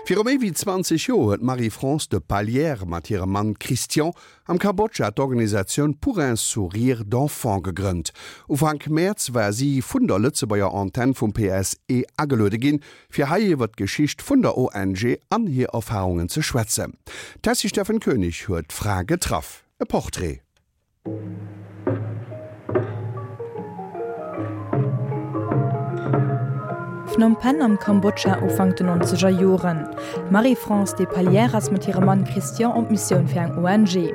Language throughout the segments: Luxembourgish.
Viru méi wéi 20 Joer huet d'Marie-France de Pallières mat hirem Mann Christian am Kambodscha d'Organisatioun Pour un sourire d'enfant gegrënnt. Ufank Mäerz war si vun der Lëtzebuerger Antenn vum PSE ageluede ginn, fir hei iwwer d'Geschicht vun der ONG an hir Erfarungen ze schwätzen. D'Tessy Steffen Koenig huet d'Fra getraff. E Portrait. Phnom Penh am Kambodscha, Ufank den nonzeger Joren. D'Marie-France Despalières ass mat hirem Mann Christian op Missioun fir eng ONG.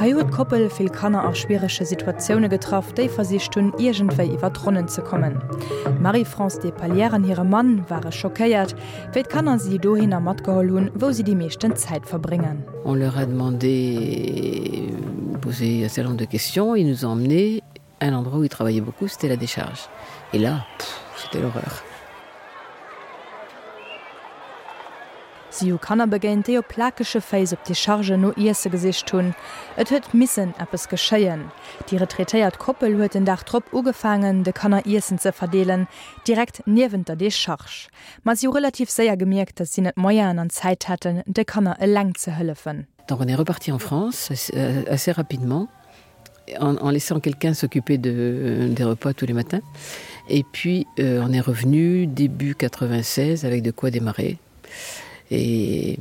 Hei huet d'Koppel vill Kanner a schwierege Situatioune getraff, déi versicht hunn, iergendwéi iwwer d'Ronnen ze kommen. D'Marie-France Despalières an hire Mann ware schockéiert, wéi d'Kanner si dohinner matgeholl hunn, wou si déi meeschten Zäit verbréngen. On leur a demandé posé un certain nombre de questions, ils nous ont emmenés à un endroit où ils travaillaient beaucoup, c'était la décharge. Et là, c'était l'horreur. Si hu Kanner begéint, déi op plakege Féiss op Dechargen no Iesse gesicht hunn. Et huet missen eppes geschéien. Déi retraitéiert Koppel huet den Dag drop ugefaangen, de Kanner Iessen ze verdeelen, direkt niewent der Decharge. Ma si hu relativ séier gemierkt, datt si net d'Moyenen an d'Zäit hätten, de Kanner eleng ze hëllefen. Donc on est reparti en France assez rapidement en, en laissant quelqu'un s'occuper de, des repas tous les matins. Et puis euh, on est revenu début 96 avec de quoi démarrer. Et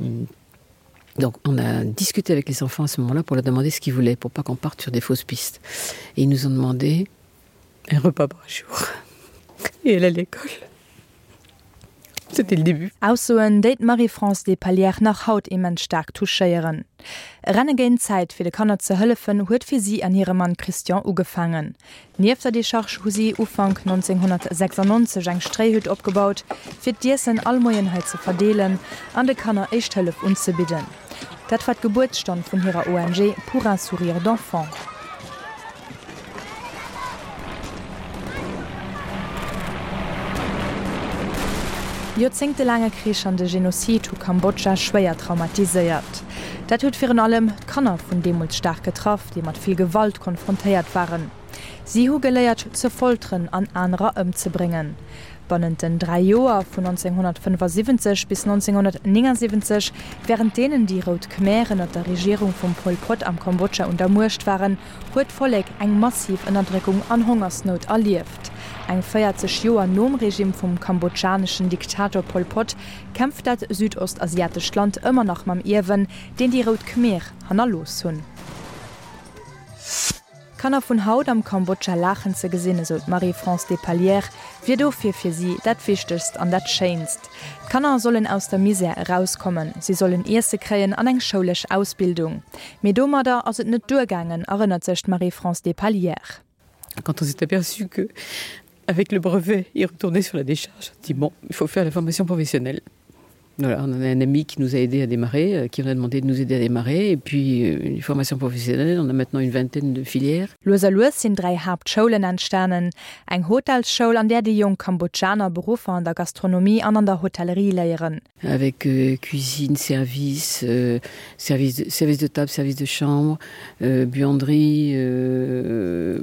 donc on a discuté avec les enfants à ce moment-là pour leur demander ce qu'ils voulaient pour pas qu'on parte sur des fausses pistes. Et ils nous ont demandé un repas par jour et elle à l'école. C'était le début. Aussoen, déi d'Marie-France Despalières nach haut immens staark touchéieren. E Renne géint d'Zäit, fir de Kanner ze hëllefen, huet fir si an hire Mann Christian ugefaangen. Nieft der Decharge hu si Ufank 1996 eng Stréihütt opgebaut, fir d'Iessen all Moien hei ze verdeelen an de Kanner éischt Hëllef unzebidden. Dat war d'Gebuertsstonn vun hirer ONG Pour un sourire d'enfant. Joerzéngtelaange Krich an de Genozid hu Kambodscha schwéier traumatiséiert. Dat huet virun allem d'Kanner vun deemools staark getraff, déi mat vill Gewalt konfrontéiert waren. Si hu geléiert ze folteren an anerer ëmzebréngen. Bannent den 3 Joer vun 1975 bis 1979, wärend deenen déi Rout Khmer ënner der Regierung vum Pol Pot am Kambodscha un der Muecht waren, huet d'Vollek eng massiv Ënnerdréckung an Hongersnout erlieft. Eng 40 Joer nom Regime vum kambodschaneschen Diktator Pol Pot kämpft dat südostasiatescht Land ëmmer nach mam Ierwen, deen déi Rout Khmer hannerlooss hunn. D'Kanner vun haut am Kambodscha laachen ze gesinn, esou d'Marie-France Despalières, wier dofir fir si dat Wichtegst an dat Schéinst. D'Kanner sollen aus der Misär erauskommen, si sollen Iesse kréien an eng schoulesch Ausbildung. Mee domadder ass et net duergaangen, erënnert sech d'Marie-France Despalières. Quand on s'est aperçu que avec le brevet, ils retournaient sur la décharge, on dit bon, il faut faire la formation professionnelle. Voilà, on a un ami qui nous a aidé à démarrer, euh, qui on a demandé de nous aider à démarrer et puis euh, une formation professionnelle, on a maintenant une vingtaine de filières. Lues a lues sinn 3 Haaptschoulen entstanen, eng Hotelsschoul, an där déi jonk Kambodschaner Beruffer an der Gastronomie an an der Hotellerie léieren. Avec euh, cuisine, service, euh, service, de, service de table, service de chambre, euh, buanderie, euh,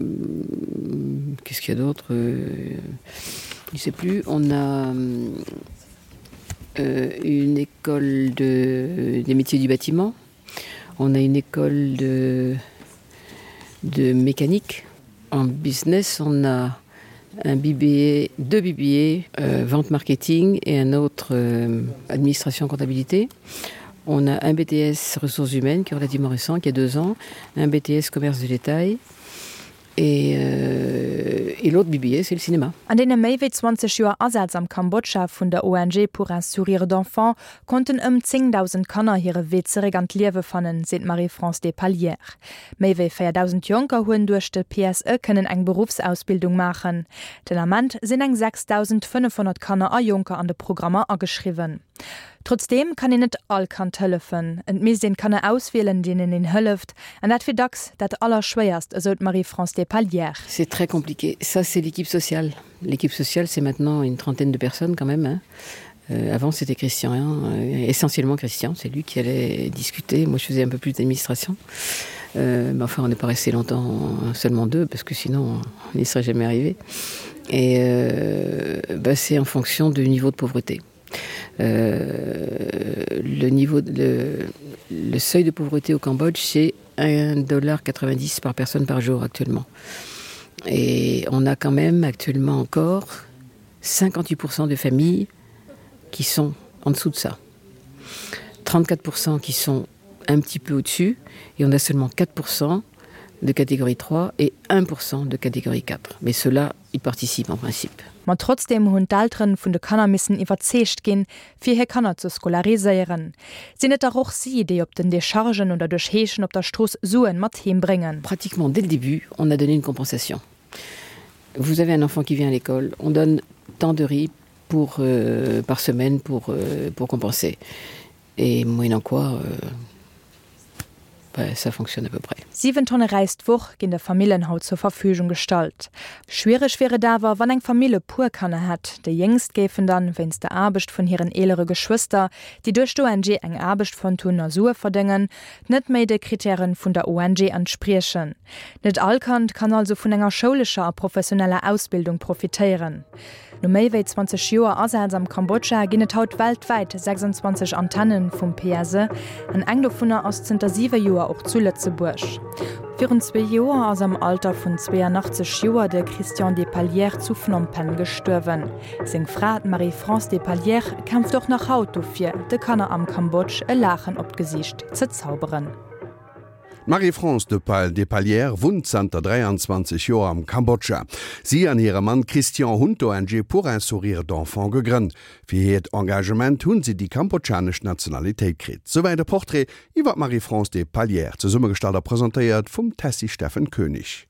qu'est-ce qu'il y a d'autre euh, Je sais plus, on a euh, une école de, des métiers du bâtiment. On a une école de, de mécanique. En business, on a un BBA, deux BBA, euh, vente marketing et un autre euh, administration comptabilité. On a un BTS ressources humaines qui est relativement récent, qui a deux ans, un BTS commerce de détail et, euh, et l'autre BBA, c'est le cinéma. An deene méi wéi 20 Joer Asaz am Kambodscha vun der ONG Pour un sourire d'enfant konnten ëm 10.000 Kanner hire Wee zeréck an d'Liewe fannen, seet d'Marie-France Despalières. Méi wéi 4.000 Jonker hunn duerch de PSE kënnen eng Beruffsausbildung maachen. Den Ament sinn eng 6.500 Kanner a Jonker an de Programmer ageschriwwen. Trotzdeem kann een net all Kand hëllefen. Et misst een d'Kanner auswielen, deenen een hëlleft. An dat wier dacks dat Allerschwéierst, esou d'Marie-France Despalières. C'est très compliqué. Ça, c'est l'équipe sociale. L'équipe sociale, c'est maintenant une trentaine de personnes quand même. Hein. Euh, avant, c'était Christian, hein, euh, essentiellement Christian, c'est lui qui allait discuter. Moi, je faisais un peu plus d'administration. Euh, mais enfin, on n'est pas resté longtemps seulement deux, parce que sinon, on n'y serait jamais arrivé. Et euh, bah, c'est en fonction du niveau de pauvreté. Euh, le niveau de, le, le seuil de pauvreté au Cambodge, c'est 1,90$ par personne par jour actuellement. Et on a quand même actuellement encore 58% de familles qui sont en dessous de ça. 34% qui sont un petit peu au-dessus et on a seulement 4% de catégorie 3 et 1% de catégorie 4. Mais cela y participe en principe. Ma trotzdeem hunn d'Elteren vun de Kanner missen iwwerzeegt ginn, fir hir Kanner ze scolariséieren. Sinn et dach och si, déi op den Dechargen oder duerch Heeschen op der Strooss Suen mat heem bréngen. Pratiquement dès le début, on a donné une compensation. Vous avez un enfant qui vient à l'école, on donne tant de riz pour, euh, par semaine pour, euh, pour compenser. Et moyennant quoi, euh, ça fonctionne à peu près. 7 Tonne Räis d'Woch ginn de Famillen haut zur Verfügung gestallt. Schwiereg wier et awer, wann eng Famill e puer Kanner hätt. Déi Jéngst géifen dann, wéinst der Aarbecht vun hiren eelere Geschwëster, déi duerch d'ONG eng Aarbecht fonnt hunn a Sue verdéngen, net méi de Krittäre vun der ONG entspriechen. Net all Kand kann also vun enger schoulescher a professioneller Ausbildung profitéieren. No méi wéi 20 Joer Asaz am Kambodscha ginn et haut weltwäit 26 Antenne vum PSE an eng dovunner ass zënter siwe Joer och zu Lëtzebuerg. Virun zwee Joer ass am Alter vun 82 Joer de Christian Despalières zu Phnom Penh gestuerwen. Seng Fra, d'Marie-France Despalières, kämpft och nach haut dofir, de Kanner am Kambodsch e Laachen op d'Gesiicht ze zauberen. D'Marie-France de Pal Despalières wunnt zanter 23 Joer am Kambodscha. Si an hire Mann Christian hunn d'ONG Pour un sourire d'enfant gegrënnt. Fir hiert Engagement hunn si déi kambodschanesch Nationalitéit kritt. Souwäit e Portrait iwwer d'Marie-France Despalières, zesummegestallt a presentéiert vum Tessy Steffen Koenig.